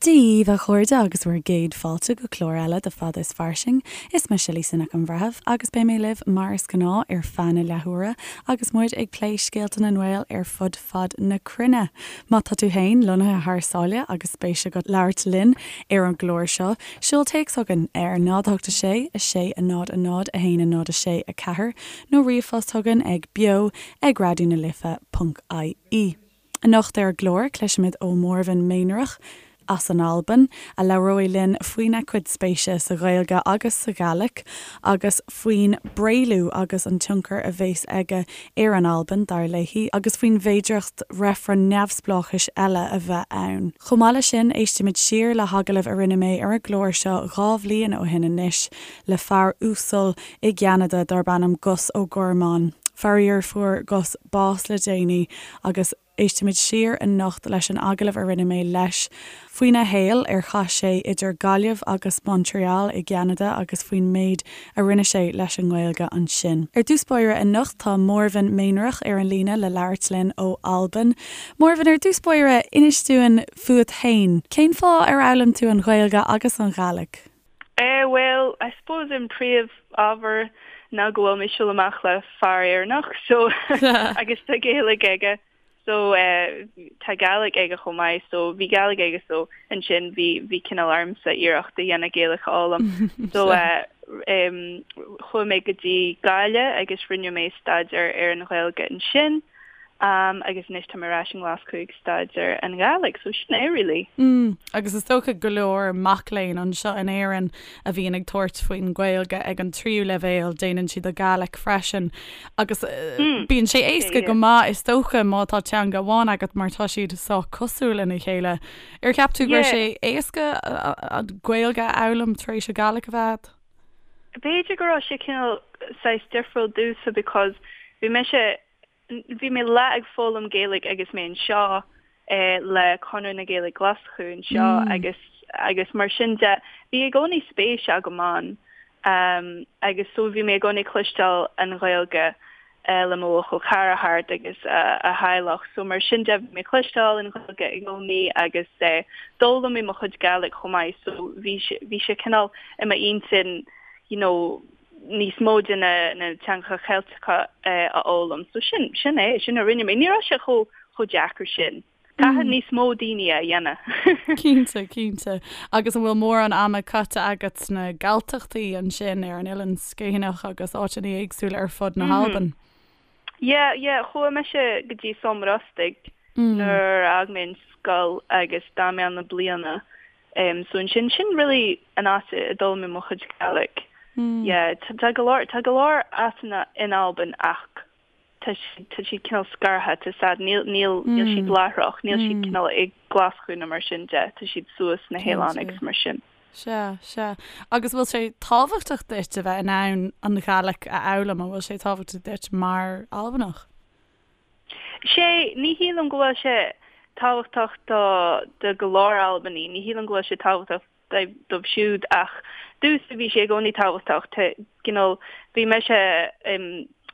Dia dhaoibh a chairde agus bhur gcéad fáilte go clár eile de Fada is Fairsing. Is mise Lisa Nic an Bhreithimh agus beidh mé libh mar is gnáth ar feadh na leathuaire agus muid ag plé scéalta na nGael ar fud fad na cruinne. Má tá tú féin lonnaithe thar sáile agus spéis agat labhairt linn ar an gclár seo, seol téacs chugainn ar 0 8 6 6 0 0 1 0 6 4 nó ríomhphost chugainn ag beo ag raidionalife ponc ie. Anocht ar an gclár, cloisfimid ó Mhòrmhain Mèinnearach as an Albain, a labhróidh linn faoina cuid spéise sa Ghaeilge agus sa Ghàidhlig, agus faoin bPréalú agus an tionchar a bheas aige ar an Albain, dar léi, agus faoin bhféidearthacht reifreann neamhspleáchais eile a bheith ann. Chomh maith leis sin, éistimid siar le hagallamh a rinne mé ar an gclár seo 2 bhliain ó shin anois le fear uasal i gCeanada darb ainm Gus Ó Gormáin. Faraor, fuair Gus bás le déanaí agus éistimid siar anocht leis an agallamh a rinne mé leis faoina shaol ar chaith sé idir Gaillimh agus Montreal i gCeanada agus faoin méid a rinne sé leis an nGaeilge ansin. Ar dtús báire anocht tá Mòrmhain Mèinnearach ar an líne le labhairt linn ó Albain. Mòrmhain, ar dtús báire, inis dúinn fút féin. Cén fáth ar fhoghlaim tú an Ghaeilge agus an Ghàidhlig? Eh bhuel, I suppose an príomh ábhar ná go bhfuil mé ag siúl amach le fear Éireannach so agus tá Gaeilge aige so eh tá Gàidhlig aige chomh maith so bhí Gàidhlig aige so ansin bhí bhí cineál ormsa iarracht a dhéanamh Gaeilge a fhoghlaim so eh em chuaigh mé go dtí Gaillimh agus rinne mé staidéar ar an Ghaeilge ansin. Um agus anois tá mé ar ais i nGlaschú ag staidéar an Ghàidhlig, so sin é really. Mm, agus is dócha go leor mac léinn anseo in Éirinn a bhíonn ag tabhairt faoin Ghaeilge ag an tríú leibhéal, déanann siad an Ghàidhlig freisin agus mm, bíonn sé éasca go maith is dócha má tá teanga amháin agat mar tá siad sách cosúil lena chéile. Ar cheap tú go raibh sé éasca an Ghaeilge a fhoghlaim tar éis an Ghàidhlig a bheith agat? B'fhéidir go raibh sé cineál saghas difriúil domhsa because bhí mise Bhí mé leath ag foghlaim Gaeilge agus mé anseo le Conradh na Gaeilge Glaschú anseo agus agus mar sin de bhí i gcónaí spéis agam ann agus so bhí mé i gcónaí ag cloisteáil an Ghaeilge le mo bhuachaill cara thart agus a theaghlach so mar sin de bhí mé ag cloisteáil an Ghaeilge i gcónaí agus d'fhoghlaim mé mo chuid Gàidhlig chomh maith so bhí bhí sé cineál i m'intinn you know níos mó de na na teangacha Ceilteacha a fhoghlaim. So sin, sin é, sin a rinne mé. Ní raibh sé chomh, chomh deacair sin. Caithfidh níos mó daoine é a dhéanamh. Cinnte, cinnte. Agus an bhfuil mórán ama caite agat sna Galltachtaí ansin ar an Oileán Sgitheanach agus áiteanna éagsúla ar fud na hAlban? Yeah, yeah, chuaigh mise go dtí Sabhal Mòr Ostaig nuair a fhág mé an scoil agus d'fhan mé ann le bliana. Um, so ansin, sin really an áit a d'fhoghlaim mé mo chuid Gàidhlig. Yeah, tá go leor, tá go leor áiteanna in Albain ach tá siad, tá siad cineál scartha, tá siad, níl, níl, níl siad láithreach, níl siad cineál i nGlaschú nó mar sin de, tá siad suas sna hoileáin agus mar sin. Sea, sea. Agus bhfuil sé tábhachtach duit a bheith in ann an Ghàidhlig a fhoghlaim? An bhfuil sé tábhachtach duit mar Albanach? Sé, ní shílim go bhfuil sé tábhachtach do do go leor Albanaigh, ní shílim go bhfuil sé tábhachtach dóibh siúd ach domhsa bhí sé i gcónaí tábhachtach, tá, you know, bhí mise,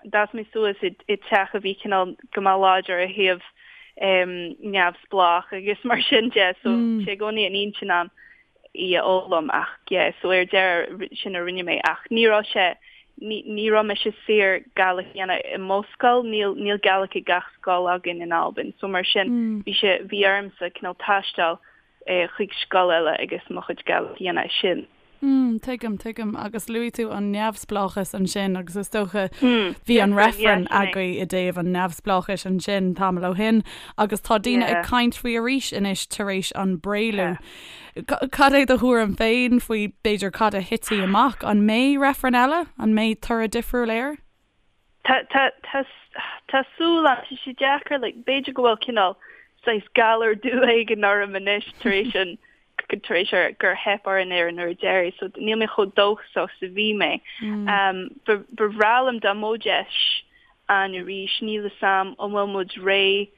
d'fhás mé suas i dteach a bhí cineál go maith láidir ó thaobh neamhspleách agus mar sin de so bhí sé i gcónaí in intinn a'm í a fhoghlaim ach yeah so ar deireadh sin a rinne mé ach ní raibh sé ní ní raibh mise saor Gàidhlig a dhéanamh i mo scoil níl níl Gàidhlig ag gach scoil againn in Albain so mar sin bhí sé bhí ormsa cineál taisteal eh chuig scoil eile agus mo chuid Gàidhlig a dhéanamh ansin. Mm, tuigim, tuigim. Agus luaigh tú an neamhspleáchas ansin agus is dócha bhí an reifreann agaibh i dtaobh an neamhspleáchais ansin tamall ó shin agus tá daoine ag caint faoi arís anois tar éis an bPréalú. Cad é do thuairim féin faoi b'fhéidir cad a thitfidh amach? An mbeidh reifreann eile? An mbeidh toradh difriúil air? Tá, tá, tá, tá súil agam, tá sé deacair, like, b'fhéidir go bhfuil cineál saghas galar dubh éigin orm anois tar éis an, tar éis ar, gur theip orainn ar an uair deiridh, so níl mé chomh dóchasach is a bhí mé. Um, ba, ba bhreá liom dá mbeadh deis ann arís, níl 'fhios a'm an bhfuil muid réidh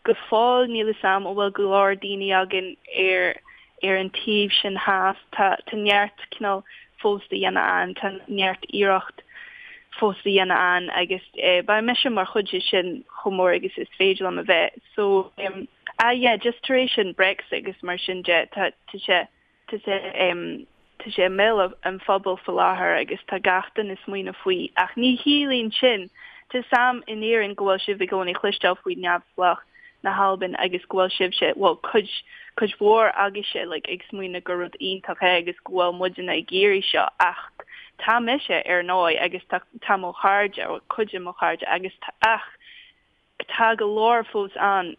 Go fóill níl 'fhios a'm an bhfuil go leor daoine againn ar ar an taobh sin theas. Tá tá neart cineál fós le dhéanamh ann, tá neart iarracht fós le dhéanamh ann agus eh beidh mise mar chuid de sin chomh mór agus is féidir liom a bheith. So em. Ah yeah, just tar éis an Brexit agus mar sin de, tá tá sé tá sé em tá sé i mbéal an phobail faoi láthair agus tá gach duine ag smaoineamh faoi ach ní chiallaíonn sin, tá 'fhios a'm in Éirinn go bhfuil sibh i gcónaí ag cloisteáil faoi neamhspleách na hAlban agus go bhfuil sibhse, bhuel cuid cuid mhór agaibhse like ag smaoineamh gur rud iontach é agus go bhfuil muidne ag iarraidh seo ach tá mise ar ndóigh agus tá tá mo chairde, cuid de mo chairde agus tá ach Tá go leor fós ann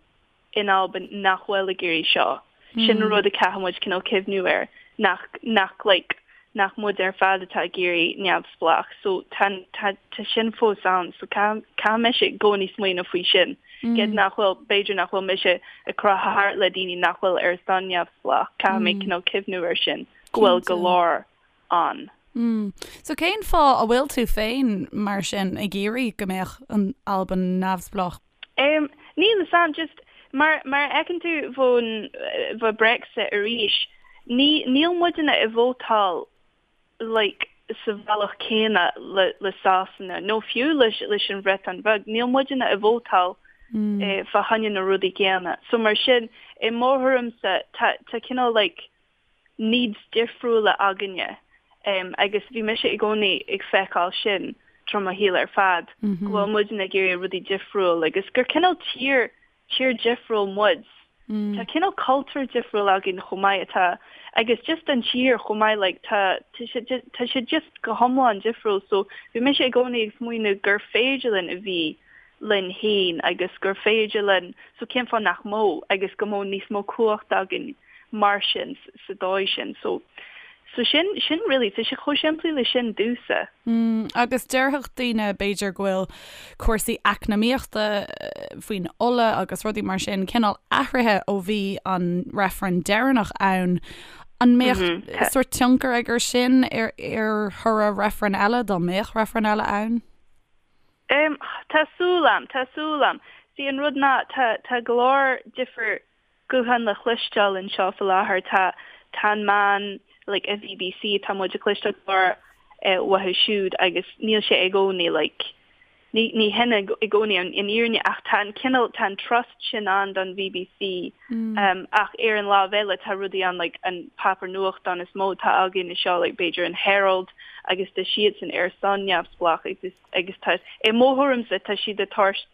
in Albain nach bhfuil ag iarraidh seo. Sin rud a caithfidh muid cineál cuimhniú air, nach, nach like, nach muid ar fad atá ag iarraidh neamhspleách. So tá, tá, tá sin fós ann. So caithfidh, caithfidh mise i gcónaí smaoineamh faoi sin. Gidh nach bhfuil, b'fhéidir nach bhfuil mise ag croitheadh thart le daoine nach bhfuil ar son neamhspleách. Caithfidh mé cineál cuimhniú air sin, go bhfuil go leor ann. Mm. So cén fáth a bhfuil tú féin, mar sin, ag iarraidh go mbeadh an Albain neamhspleách? Em, níl 'fhios a'm, just, mar, mar a fheiceann tú fán, fá Brexit arís, ní, níl muidne ag vótáil like sa bhealach céanna le, le Sasana, nó fiú leis, leis an Bhreatain Bheag, níl muidne ag vótáil eh, fá choinne na rudaí céanna. So mar sin, i mo thuairimse, tá, tá cineál like, needs difriúla againne agus bhí mise i gcónaí ag feiceáil sin tríd mo shaol ar fad, go bhfuil muidne ag iarraidh rudaí difriúil agus gur cineál tír, tír difriúil muid. Tá cineál cultúr difriúil againn chomh maith atá agus just an tír chomh maith like tá tá sé tá sé just go hiomlán difriúil so bhí mise i gcónaí ag smaoineamh gur féidir linn a bhí linn féin agus gur féidir linn so cén fáth nach mbeadh agus go mbeadh níos mó cumhacht againn mar sin sa dóigh sin. So so sin sin really tá sé chomh simplí le sin domhsa. Mm, agus déarfadh daoine b'fhéidir go bhfuil cúrsaí eacnamaíochta faoin ola agus rudaí mar sin cineál athraithe ó bhí an reifreann deireanach ann. An mbeadh mm -hmm. sórt tionchar aige sin ar ar thoradh reifreann eile dá mbeadh reifreann eile ann? Um, tá súil a'm, tá súil a'm. See an rud ná tá tá go leor difear guthán le chloisteáil anseo faoi láthair. Tá tá an meán like an BBC tá muid ag cloisteáil go leor uathu siúd agus níl sé i gcónaí like ní ní hin i gcónaí an an fhírinne ach tá an cineál tá an trust sin ann don BBC um ach ar an lámh eile tá rudaí ann like an páipéar nuachtán is mó atá againn anseo like b'fhéidir an Herald agus tá siadsan ar son neamhspleách agus agus tá, i mo thuairimse, tá siad ag tabhairt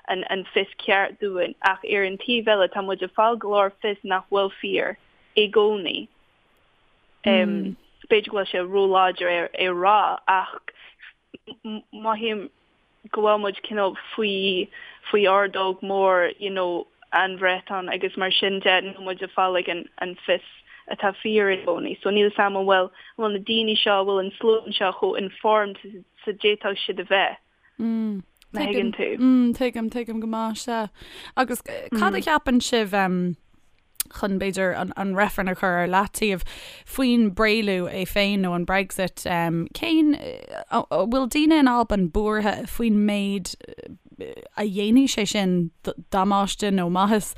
an an fios ceart dúinn ach ar an taobh eile tá muid ag fáil go leor fios nach bhfuil fíor i gcónaí. B'fhéidir go bhfuil sé róláidir é a rá ach mothaím go bhfuil muid cineál faoi faoi ordóg mór you know an Bhreatain agus mar sin de níl muid ag fáil like an an fios atá fíor i gcónaí. So níl 'fhios a'm an bhfuil an bhfuil na daoine seo, an bhfuil an slua seo chomh informed is a d'fhéadfadh siad a bheith. Mm. Má thuigeann tú. Mm, tuigim, tuigim go maith, sea. Agus cad a cheapann sibh um, chun b'fhéidir an, an reifreann a chur ar leataobh faoin bpréalú é féin nó an Brexit, um, cén an bhfuil daoine in Albain buartha faoin méid a dhéanfaidh sé sin damáiste nó maitheas,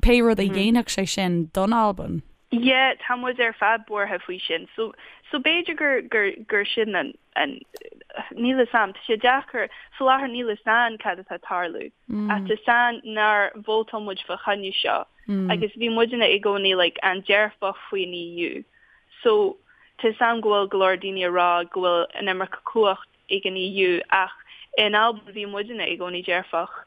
pé rud a dhéanfadh sé sin don Albain? Yeah, tá muid ar fad buartha faoi sin. So, so b'fhéidir gur, gur, gur sin an, an, níl 'fhios a'm, tá sé deacair, faoi láthair níl 'fhios a'm cad atá ag tarlú. Ach tá 'fhios a'm nár vótáil muid fá choinne seo. Agus bhí muidne i gcónaí like an-dearfach faoin EU. So, tá 'fhios a'm go bhfuil go leor daoine ag rá go bhfuil an iomarca cumhacht ag an EU ach in Albain bhí muidne i gcónaí dearfach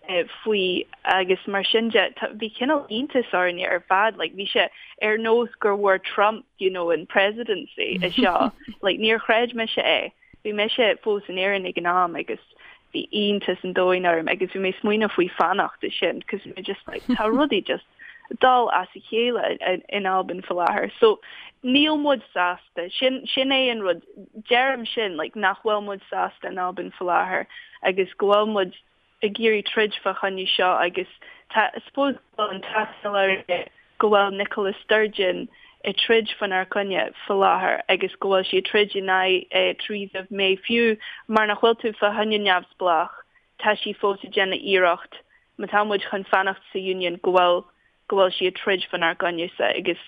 faoi agus mar sin de bhí cineál iontas orainne ar fad like bhí sé ar nós gur bhfuair Trump you know an presidency anseo like níor chreid mise é bhí mise fós in Éirinn ag an am agus bhí iontas an domhain orm agus bhí mé ag smaoineamh faoi fanacht ansin cos bhí mé just like tá rudaí just dul as a chéile in Albain faoi láthair. So níl muid sásta. Sin sin é an rud. Deirim sin like nach bhfuil muid sásta in Albain faoi láthair agus go bhfuil muid ag iarraidh troid fá choinne seo agus tá I suppose go bhfuil an t-ádh orainne go bhfuil Nicola Sturgeon ag troid fánár gcoinne faoi láthair agus go bhfuil sí ag troid in aghaidh Theresa May fiú mar nach bhfuil tú fá choinne neamhspleách tá sí fós ag déanamh iarracht má tá muid chun fanacht sa Union go bhfuil go bhfuil sí ag troid fánár gcoinne-sa agus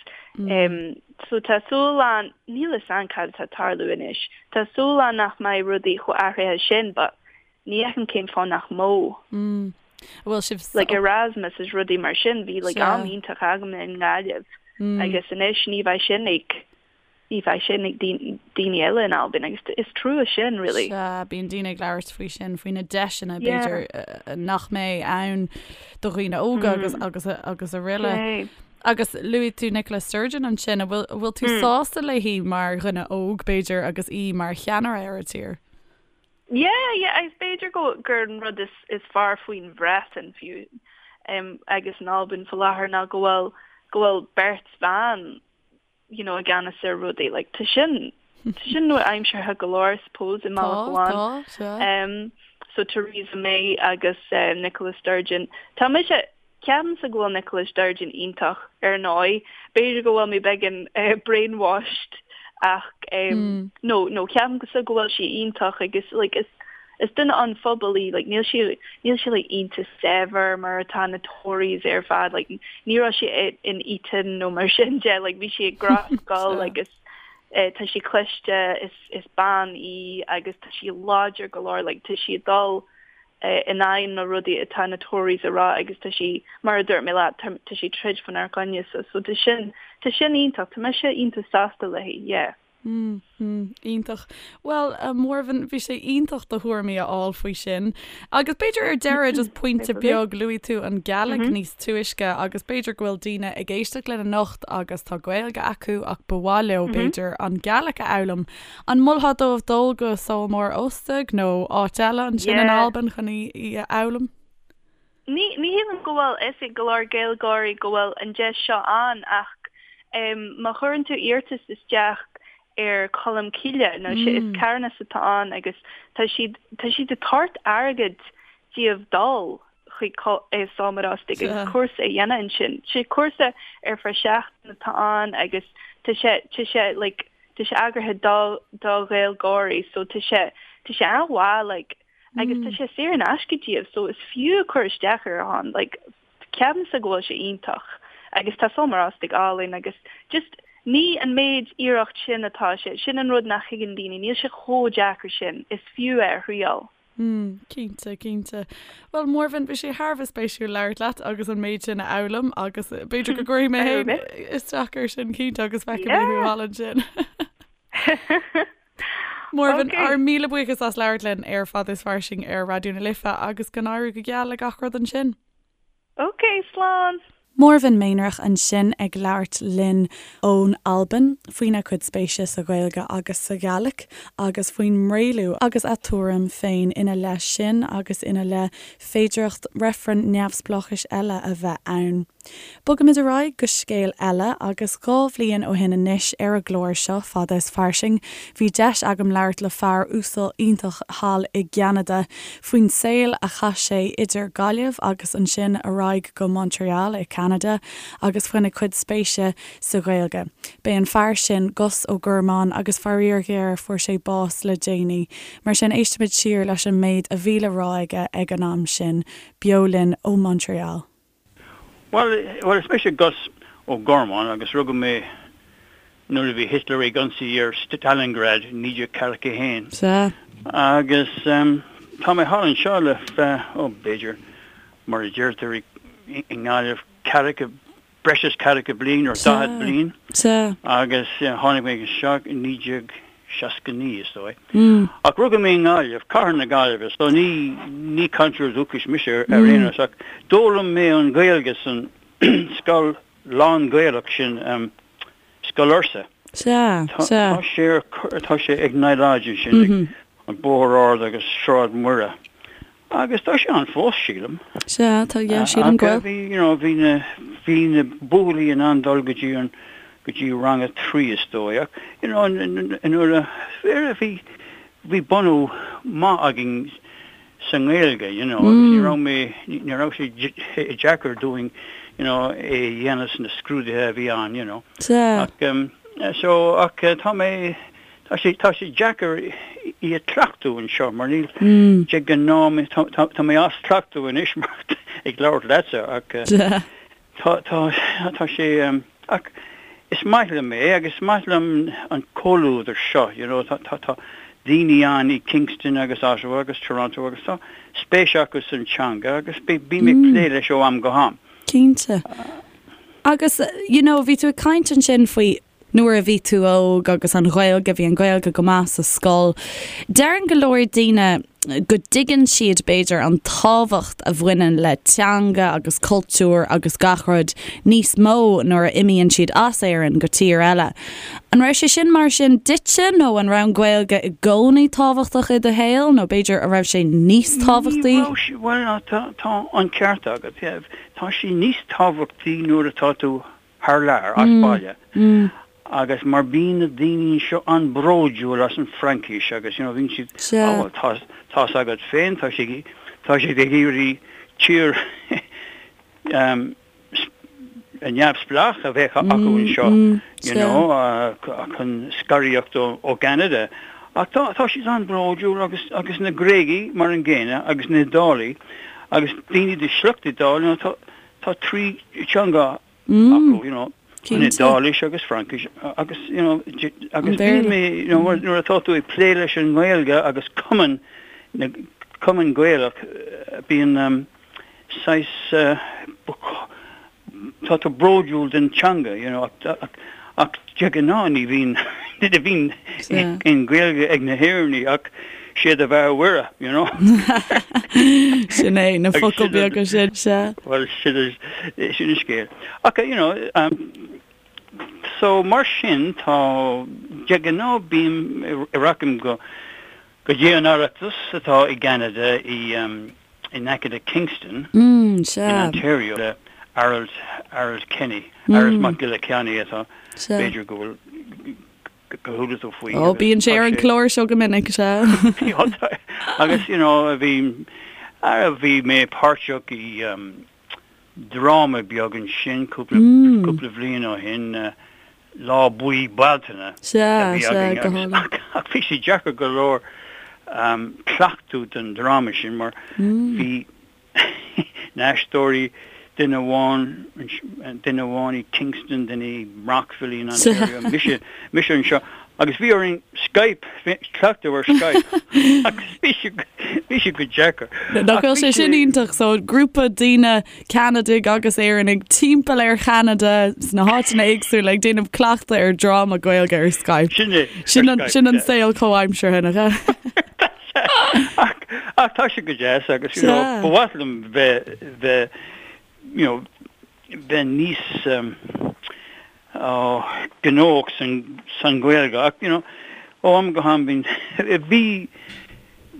so tá súil ann, níl 'fhios a'm cad atá ag tarlú anois, tá súil ann nach mbeidh rudaí chomh athraithe sin but ní fheicim cén fáth nach mbeadh. An bhfuil sibh Like Erasmus is rudaí mar sin, bhí like am iontach agam i nGaillimh agus anois ní bheidh sin ag ní bheidh sin ag daoine eile in Albain agus is trua sin really. Sea, bíonn daoine ag labhairt faoi sin, faoi na deiseanna b'fhéidir nach mbeidh ann do dhaoine óga agus agus agus araile. Agus luaigh tú Nicola Sturgeon ansin, an bhfuil bhfuil tú sásta léi mar dhuine óg b'fhéidir agus í mar cheannaire ar an tír? Yeah, yeah, agus b'fhéidir go gur an rud is is fearr faoin Bhreatain fiú agus in Albain faoi láthair ná go bhfuil go bhfuil beirt bhan you know, i gceannas ar rudaí. Like, tá sin, tá sin nua-aimseartha go leor, I suppose, i mbealach amháin. Tá, tá, sea. Um, so Theresa May agus uh, Nicola Sturgeon. Tá mise, ceapaimse go bhfuil Nicola Sturgeon iontach ar ndóigh. B'fhéidir go bhfuil mé beagán uh, brainwashed ach um, mm. no, no, ceapaimse go bhfuil sí iontach agus like, is, Is duine an phobail í, like níl sí, níl sí like iontach saibhir mar atá na Tories ar fad, like ní raibh sí in Eton nó mar sin de, like bhí sí ag gnáthscoil agus eh, tá sí cliste, is, is bean í agus tá sí láidir go leor, like tá sí ag dul eh, in aghaidh na rudaí atá na Tories a rá agus tá sí, mar a dúirt mé leat, tá, tá sí troid faoinár gcoinne so, so tá sin, tá sin iontach, tá mise iontach sásta léi, yeah. Mm, mm, iontach. Bhuel, a Mhòrmhain, bhí sé iontach do thuairimí a fháil faoi sin. Agus b'fhéidir ar deireadh just pointe beag, luaigh tú an Gàidhlig níos túisce agus b'fhéidir go bhfuil daoine ag éisteacht linn anocht agus tá Gaeilge acu ach ba mhaith leo b'fhéidir an Gàidhlig a fhoghlaim. An molfá dóibh dul go Sabhal Mòr Ostaig nó áit eile ansin in Albain chun í a fhoghlaim? Ní shílim go bhfuil fhios ag go leor Gaeilgeoirí go bhfuil an deis seo ann ach má chuireann tú iarratas isteach ar Colm Cille, nó sé is carthanas atá ann agus tá siad tá siad ag tabhairt airgead díobh dul chuig Sabhal Mòr Ostaig agus cúrsa a dhéanamh ansin. Sé cúrsa ar feadh seachtain atá ann agus tá sé tá sé like tá sé eagraithe do do Ghaeilgeoirí so tá sé tá sé an-mhaith like agus tá sé saor in aisce díobh so is fiú cur isteach ar an like ceapaimse go bhfuil sé iontach agus tá Sabhal Mòr Ostaig álainn agus just ní an méid iarracht sin atá sé, sin an rud nach thuigeann daoine, níl sé chomh deacair sin, is fiú é a thriail. Mm, cinnte, cinnte. Bhuel, Mòrmhain, bhí sé thar a bheith spéisiúil labhairt leat agus an méid sin a fhoghlaim agus b'fhéidir go gcuirfidh mé féin isteach air sin cinnte agus feicfidh mé thú thall ansin. Mòrmhain, ár míle buíochas as labhairt linn ar Fada is Fairsing ar Raidió na Life agus go n-éirí go geal le gach rud ansin. Ok, slán! Mòrmhain Mèinnearach ansin ag labhairt linn ón Albain faoina cuid spéise sa Ghaeilge agus sa Ghàidhlig agus faoin mBréalú agus a tuairim féin ina leith sin agus ina leith féidearthacht reifreann neamhspleáchais eile a bheith ann. Bogaimid ar aghaidh go scéal eile agus 2 bhliain ó shin anois ar an gclár seo, Fada is Fairsing, bhí deis agam labhairt le fear uasal iontach thall i gCeanada faoin saol a chaith sé idir Gaillimh agus ansin ar aghaidh go Montreal i Ceanada agus faoina chuid spéise sa Ghaeilge. B'é an fear sin Gus Ó Gormáin agus faraor géar fuair sé bás le déanaí. Mar sin éistimid siar leis an méid a bhí le rá aige ag an am sin, beo linn ó Montreal. Bhuel, bhuel, is mise Gus Ó Gormáin agus rugadh mé nuair a bhí Hitler ag ionsaí ar Stalingrad i 1941. Sea. Agus tá mé thall anseo le feadh, ó, b'fhéidir, mar a deirtear i nGaillimh, ceathracha, breis is ceathracha bliain, or daichead bliain. Sea. Agus tháinig mé anseo i 1969, is dóigh. Ach rugadh mé i nGaillimh, cathair na Gaillimhe, so ní, ní cainteoir dúchais mise ar aon nós, ach d'fhoghlaim mé an Ghaeilge san scoil lán-Ghaelach sin, Scoil Fhursa. Sea, sea. Tá sé ar, tá sé ag Nile Lodge ansin, ag an Bóthar Ard agus Sráid Mhuire. Agus tá sé ann fós, sílim. Sea, tá, yeah, sílim go bhfuil. Bhí, you know, bhí na, bhí na buachaillí in ann dul go dtí an, go dtí rang a trí is dóigh. Ach, you know, nuair a, bhí, bhí bunú maith againn sa nGaeilge, you know, agus ní raibh mé, ní raibh sé deacair dúinn, you know, é a dhéanamh sna scrúduithe a bhí ann, you know. Sea. Ach, so, ach tá mé, Tá sé, tá sé deacair í a chleachtadh anseo mar níl, de ghnáth, tá, tá mé as cleachtadh anois mar ag labhairt leatsa ach tá, tá, tá sé, ach is maith liom é agus is maith liom an comhluadar seo, you know, tá, tá, tá. daoine ann i Kingston agus Ottawa agus Toronto agus tá spéis acu san teanga agus bím ag plé leis ó am go ham. Cinnte. Agus, you know, bhí tú ag caint ansin faoi nuair a bhí tú óg agus an Ghaeilge, bhí an Ghaeilge go maith sa scoil. Deireann go leor daoine go dtuigeann siad, b'fhéidir, an tábhacht a bhaineann le teanga agus cultúr agus gach rud níos mó nuair a imíonn siad as Éirinn go tír eile. An raibh sé sin mar sin duitse nó an raibh an Ghaeilge i gcónaí tábhachtach i do shaol nó b'fhéidir an raibh sé níos tábhachtaí? Ní raibh sé, bhuel tá an ceart agat, yeah. Tá sé níos tábhachtaí nuair atá tú thar lear, as baile. Agus mar bíonn na daoine anseo an-bhródúil as an Fraincis agus you know bíonn siad, oh well tá tá's agat féin, tá sé tá siad ag iarraidh tír um, neamhspleách a bheith acu anseo, you know, chun scaradh ó ó gCeanada. Ach tá tá siad an-bhródúil agus agus na Gréagaigh mar an gcéanna agus na hIodálaigh agus daoine de shliocht Iodáil, you know, tá Tá 3 teanga acu, you know, an Iodáilis agus Fraincis agus, you know, agus bíonn mé, you know, nuair atá tú ag plé leis an nGaeilge agus cumann, na, cumann Gaelach, bíonn saghas, tá tú bródúil den teanga, you know, ach, ach de ghnáth ní bhíonn, ní bhíonn aon Ghaeilge ag na hÉireannaigh ach Sé do bheatha Mhuire, you know. Sin é, na focail beaga sin, sea. Bhuel, sin sin an scéal. Ach, you know, um, so mar sin tá, de ghnáth bím, rachaim go, go dtí an Oireachtas atá i gCeanada i, um, in aice le Kingston, mm, sea. in Ontario, le Harold, Harold Kenny, Harold Mac Giolla Cheannaigh atá, b'fhéidir go bhfuil, gur chuala tú faoi. Ó, bíonn sé ar an chlár seo go minic, sea. Agus, you know, bhí, bhí mé páirteach i um, dráma beag ansin cúpla, mm. cúpla bhliain ó shin, uh, Lá Buí Bealtaine. Sea, sea, go hálainn. Ach bhí sé deacair go leor um, cleachtadh don dráma sin mar mm. bhí na haisteoirí, duine amháin, duine amháin i Kingston, duine i Brockville in Ontario, mise, mise anseo, agus bhí orainn Skype, cleachtadh ar Skype, agus bhí sé, bhí sé go deacair. Nach bhfuil sé sin iontach, so grúpa daoine, Ceanadaigh agus Éireannaigh timpeall ar Cheanada sna háiteanna éagsúla ag déanamh cleachtadh ar dráma Gaeilge ar Skype. Sin é, Sin an, sin an saol comhaimseartha, nach ea? Ach, ach tá sé go deas agus, you know, ba mhaith liom bheith, bheith, you know, bheith níos um, oh, gnóthach san, san Ghaeilge ach, you know, ó am go ham bíonn, bhí,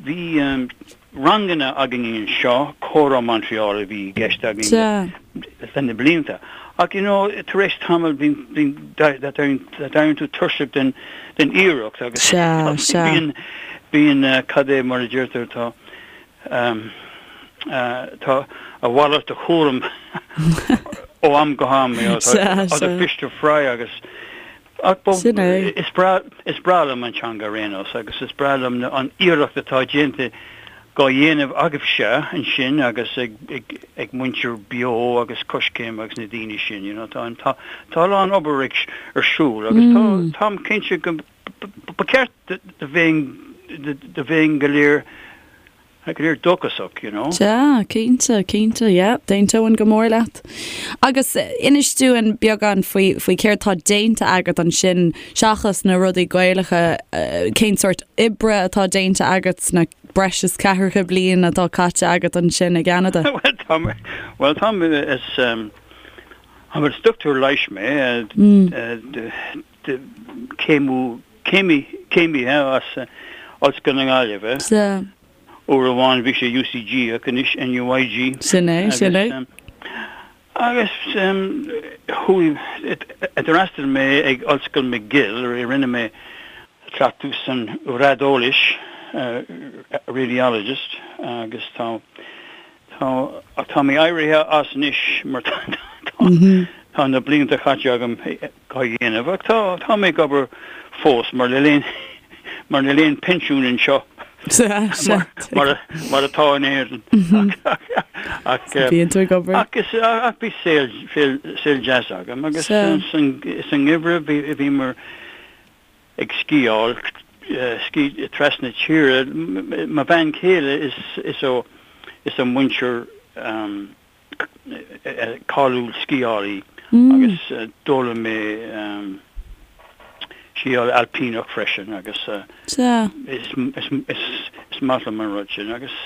bhí um, ranganna againn anseo, Comhrá Montreal a bhí i gceist againn le na blianta. Ach, you know, tar éis tamaill bíonn, bíonn, d'éiríonn tú tuirseach den, den iarracht agus bíonn, bíonn, cad é mar a deirtear, tá, tá a mhalairt de chúram ó am go ham, you know, tá other fish to fry agus, Ach ba, Sin é. is breá, is breá liom an teanga ar aon nós agus is breá liom na, an iarracht atá déanta dhá dhéanamh agaibhse ansin agus ag, ag, ag muintir Beo agus Coiscéim agus na daoine sin, you know, tá an, tá, tá a lán obair ag, ar siúl agus tá, táim cinnte go, ba cheart do, do bheinn, do, do bheinn go léir, Go léir dóchasach, you know. Sea, cinnte, cinnte, yeah, d'aontóinn go mór leat. Agus inis dúinn beagán faoi, faoi céard tá déanta agat ansin, seachas na rudaí Gaelacha, cén sórt oibre atá déanta agat sna breis is ceathracha bliain atá caite agat ansin i gCeanada? Bhuel, tá mé, bhuel, tá mé, is, is dochtúir leighis mé, de céimiú, céimí, céimithe as Ollscoil na Gaillimhe. Sea. Uair amháin bhí sé UCG ach anois NUIG. Sin é, sin é. Agus chuaigh, d'fhreastail mé ag Ollscoil McGill, rinne mé cleachtadh san raideolaís, radiologist, agus tá, Tá, ach tá mé éirithe as anois mar tá tá na blianta caite agam dhá dhéanamh ach tá tá mé ag obair fós mar níl aon mar níl aon pinsiún anseo mar mar mar atá in Éirinn ach Bíonn tú ag obair. ach is ach bhí saol saol saol deas agam agus san san ngeimhreadh bhí bhíomar ag sciáil. scí trasna tíre. Mo bhean chéile is is ó is ó muintir cáiliúil sciálaí agus d'fhoghlaim mé sciáil ailpíneach freisin agus is is maith liom an rud sin agus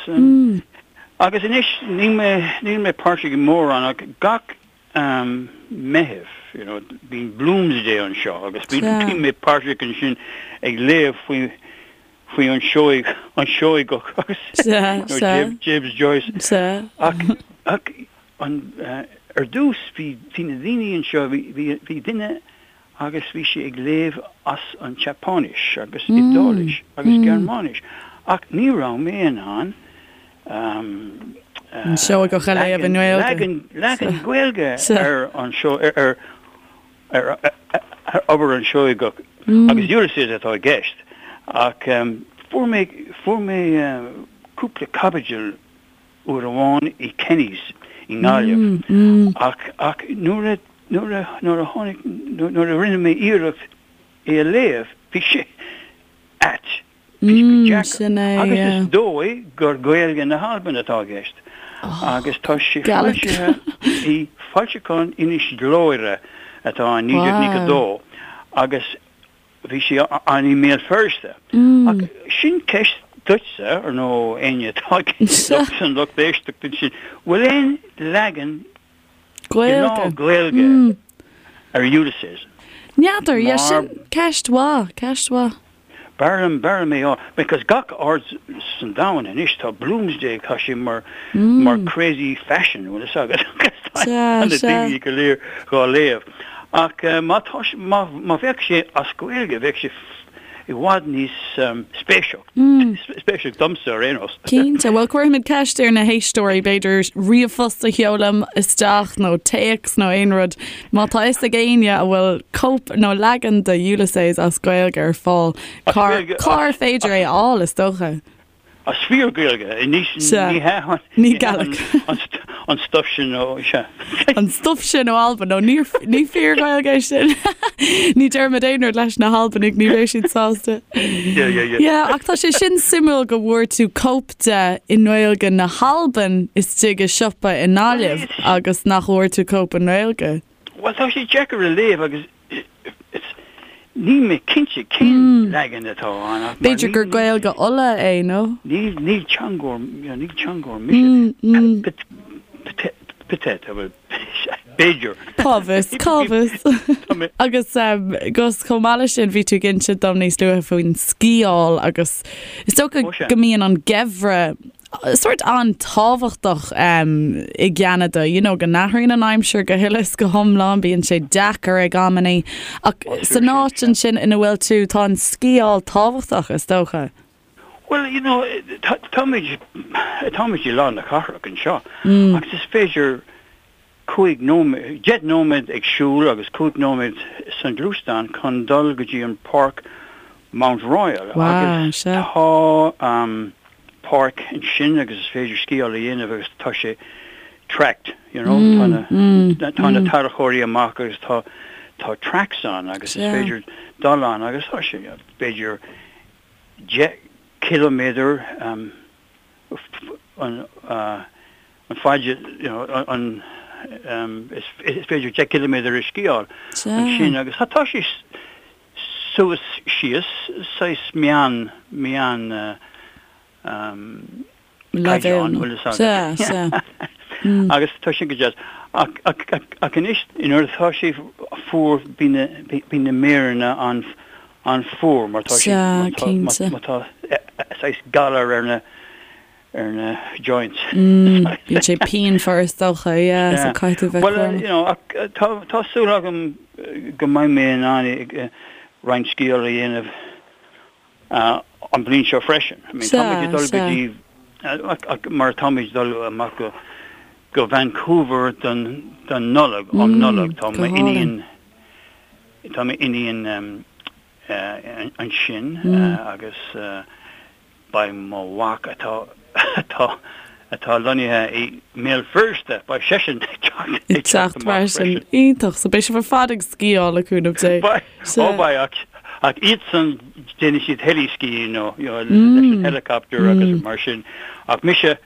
agus anois níl mé níl mé páirteach i mórán ach gach Meitheamh you know bíonn Bloomsday anseo agus bíonn mé páirteach ansin ag léamh faoi faoi an Seoig an Seoigeach agus James Joyce ach ach an ar dtús bhí bhí na daoine anseo bhí bhí bhí duine agus bhí sé ag léamh as an tSeapáinis agus Iodáilis agus Gearmáinis ach ní raibh mé in ann An Seoigeach a léamh i nGaeilge. Leagan leagan Gaeilge ar an seo ar ar ar obair an Seoigeach agus Ulysses atá i gceist ach fuair mé fuair mé cúpla caibidil uair amháin i Kenny's i nGaillimh ach ach nuair a nuair a nuair a tháinig nuair a rinne mé iarracht é a léamh bhí sé ait. Bhí sé go deacair. Sin é, Agus yeah. is dóigh gur Gaeilge na hAlban atá i gceist. Agus tá sé Gaelic. foilsithe i foilseachán Inis Gluaire atá in 1992 agus bhí sé ann i mBéal Feirste. Ach sin ceist duitse, ar nó éinne atá san lucht éisteachta ansin, bhfuil aon leagan Gaeilge. Gaeilge ar Ulysses. N'fheadar, yeah, sin ceist mhaith, ceist mhaith. B'fhearr liom, b'fhearr liom é a fháil, because gach áit san domhan anois tá Bloomsday, tá sé mar, mar crazy fashion, bhfuil fhios agat, tá na daoine go léir dhá léamh. Ach má tá, má, má bheadh sé as Gaeilge, bheadh sé i bhfad níos spéisiúil, spéisiúil domsa ar aon nós. Cinnte. Bhuel, cuirfimid ceist ar na héisteoirí, b'fhéidir ríomhphost a sheoladh isteach nó téacs nó aon rud. Má tá fhios ag éinne a bhfuil cóip nó leagan de Ulysses as Gaeilge ar fáil, cár féidir é a fháil, is dócha? As fíor-Ghaeilge, ní hea an Ní Gaelic. an stuif sin ó, sea. An stuif sin ó Albain, nó ní ní fíor-Ghaeilge é sin. Ní déarfaimid aon rud leis na hAlbanaigh, ní bheidh siad sásta. Yeah, yeah, yeah. Yeah, ach tá sé sin suimiúil go bhfuair tú cóip de i nGaeilge na hAlban istigh i siopa i nGaillimh agus nach bhfuair tú cóip i nGaeilge. Bhuel, tá sé deacair a léamh agus Níl mé cinnte cén leagan atá ann ach mar B'fhéidir gur Gaeilge Uladh é, nó? Níl, níl teangóir, níl teangóir mise. Peut-être, bhuel, b'fhéidir. Cá bhfios, cá bhfios. Agus Gus, chomh maith leis sin, bhí tú ag inse dom níos luaithe faoin sciáil agus is dócha go mbíonn an geimhreadh sórt an-tábhachtach i gCeanada, you know, go n-athraíonn an aimsir go huile is go hiomlán, bíonn sé deacair ag amannaí, ach san áit ansin ina bhfuil tú, tá an sciáil tábhachtach, is dócha. Bhuel, you know, táimid, táimid i lár na cathrach anseo agus is féidir 5 nóiméad, 10 nóiméad ag siúl agus 5 nóiméad san ghluaisteán chun dul go dtí an páirc Mount Royal agus tá páirc ansin agus is féidir sciáil a dhéanamh agus tá sé tracked, you know, tá na tá na tarracóirí amach agus tá tá tracks ann agus is féidir dul ann agus tá sé b'fhéidir 10 ciliméadar an faid you know an is féidir 10 ciliméadar a sciáil ansin agus tá sé suas síos saghas meán meán caighdeán bhfuil fhios agat. Agus tá sin go deas. Ach ach ach anois nuair atá sé fuar bíonn na bíonn na méireanna an an-fhuar mar tá sé má tá saghas galar ar na ar na joints. Bíonn sé pianmhar is dócha, yeah, so caithfidh tú bheith cúramach. Well, you know, tá tá súil agam go mbeidh mé in ann roinnt sciáil a dhéanamh an bhliain seo freisin. I mean, táimid ag dul go dtí mar táimid ag dul amach go go Vancouver don don Nollaig, um Nollaig, tá m'iníon Tá m'iníon ansin agus beidh mo mhac atá atá atá lonnaithe i mBéal Feirste, beidh seisean ag teacht ag teacht freisin. Iontach. So beidh sibh ar fad ag sciáil le cúnamh Dé. Beidh, ó beidh ach. Ach iadsan, déanann siad heli-skiing nó, you know, leis an helicopter agus mar sin. Ach mise,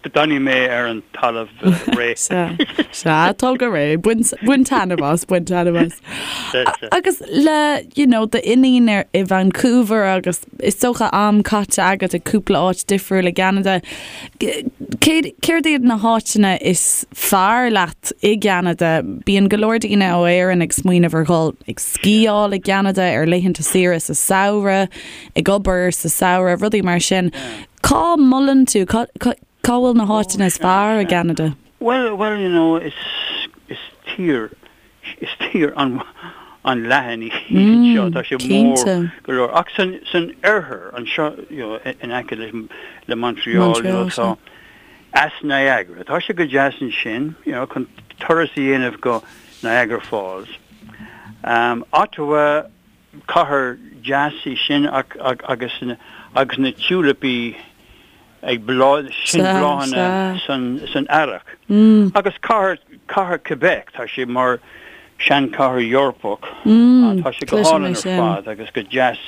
D'fhanfaidh mé ar an talamh réidh. Sea, sea, tá go réidh. Bain, bain taitneamh as, bain taitneamh as. Sea, sea. Agus le, you know, d'iníon ar, i Vancouver agus is dócha am caite agat i cúpla áit difriúil i gCeanada, cé, céard iad na háiteanna is fearr leat i gCeanada? Bíonn go leor daoine ó Éirinn ag smaoineamh ar dhul ag sciáil i gCeanada ar laethanta saoire sa samhradh, ag obair sa samhradh, rudaí mar sin. Cá molann tú, cá bhfuil na háiteanna is fearr i gCeanada? Bhuel, bhuel, you know, is, is tír, is tír an, an-leathan í anseo, tá sé mór go leor. Ach san, san oirthear anseo, you know, in aice le, le Montreal, you know, tá Eas Niagara, tá sé go deas ansin, you know, chun turas a dhéanamh go Niagara Falls. Um, Ottawa, Cathair deas í sin ach agus agus na tiúilipí ag bláth, sin bláthanna san earrach. Agus cathair, cathair Quebec, tá sé mar seanchathair Eorpach, tá sé go hálainn ar fad agus go deas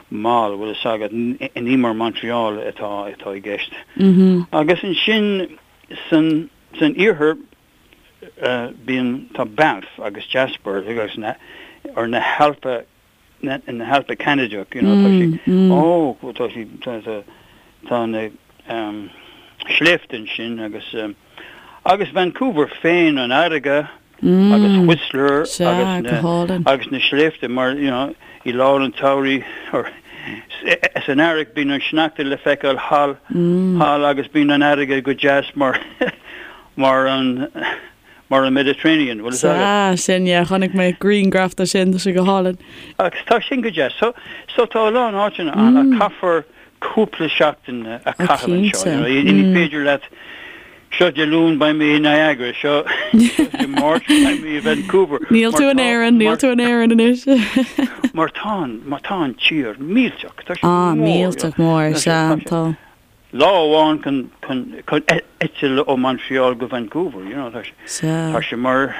mall, bhfuil fhios agat, ní mar Montreal atá atá i gceist. Agus ansin san san iarthar, Bíonn, tá Banff agus Jasper agus na, or na hAlpa, na, na hAlpa Ceanadach, you know, tá sé, ó, tá sé, tá, tá, tá na um, sléibhte ansin agus, um, agus Vancouver féin, an fharraige agus Whistler agus na, agus na sléibhte mar, you know, i lár an tsamhraidh, or san earrach bíonn an sneachta le feiceáil thall, thall agus bíonn an fharraige go deas mar Mar an, mar an Mediterranean, bhfuil fhios agat? Sea, sin, yeah, chonaic mé grianghraf de sin, tá sé go hálainn. Agus tá sin go deas. So, so tá a lán áiteanna ann ach caithfear cúpla seachtain a chaitheamh anseo, you know, ní féidir leat, seo Dé Luain beidh mé i Niagara, seo Dé Máirt beidh mé i Vancouver. Níl tú in Éirinn, níl tú in Éirinn anois. Mar tá an, mar tá an tír millteach, tá sé mór. Ah, millteach mór, sea, tá. Lá amháin chun chun eitilt ó Montreal go Vancouver, you know, tá sé tá sé mar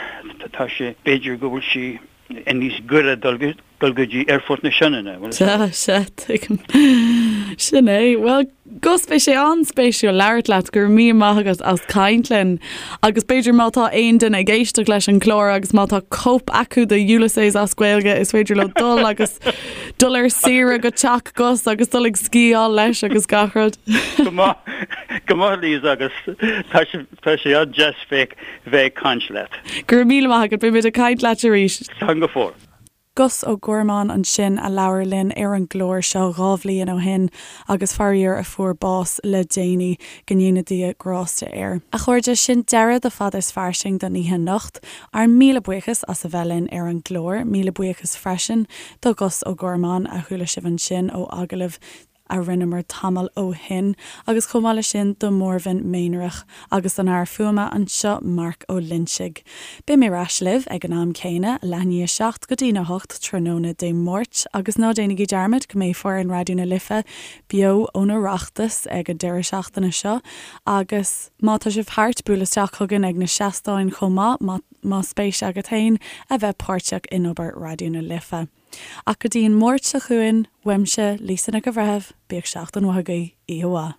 tá sé b'fhéidir go bhfuil sé níos gaire dul dul go dtí Aerfort na Sionainne, bhfuil Sea, sea, tuigim. Sin é. Bhuel, Gus, bhí sé an-spéisiúil labhairt leat, go raibh míle maith agat as caint linn. Agus b'fhéidir má tá aon duine ag éisteacht leis an gclár agus má tá cóip acu de Ulysses as Gaeilge, is féidir leo dul agus dul ar saoire go teach Gus agus dul ag sciáil leis agus gach rud. Go maith, go maith Lisa agus tá sé, tá sé an-deas bheith, bheith ag caint leat. Go raibh míle maith agat, beidh muid ag caint leat arís. Slán go fóill. Gus Ó Gormáin ansin a labhair linn ar an gclár seo 2 bhliain ó shin agus faraor a fuair bás le déanaí, go ndéana Dia grásta air. A chairde, sin deireadh do Fada is Fairsing don oíche anocht. Ár míle buíochas as a bheith linn ar an gclár. Míle buíochas freisin do Ghus Ó Gormáin, a chuala sibh ansin ó agallamh a rinneamar tamall ó shin, agus chomh maith leis sin do Mhórven Méanrach agus don fhear fuaime anseo, Marc Ó Loinsigh. Beidh mé ar ais libh ag an am céanna, leath i ndiaidh a 7 go dtína 8 tráthnóna Dé Máirt, agus ná déanaigí dearmad go mbeidh foireann Raidió na Life beo ón Oireachtas ag an deireadh seachtaine seo, agus má tá sibh thart, buail isteach chugainn ag na seastáin chomh maith, más spéis agat féin a bheith páirteach in obair Raidió na Life. Ach go dtí an Máirt seo chugainn, uaimse, Lisa Nic an Bhreithimh, bíodh seachtain mhaith agaibh, oíche mhaith.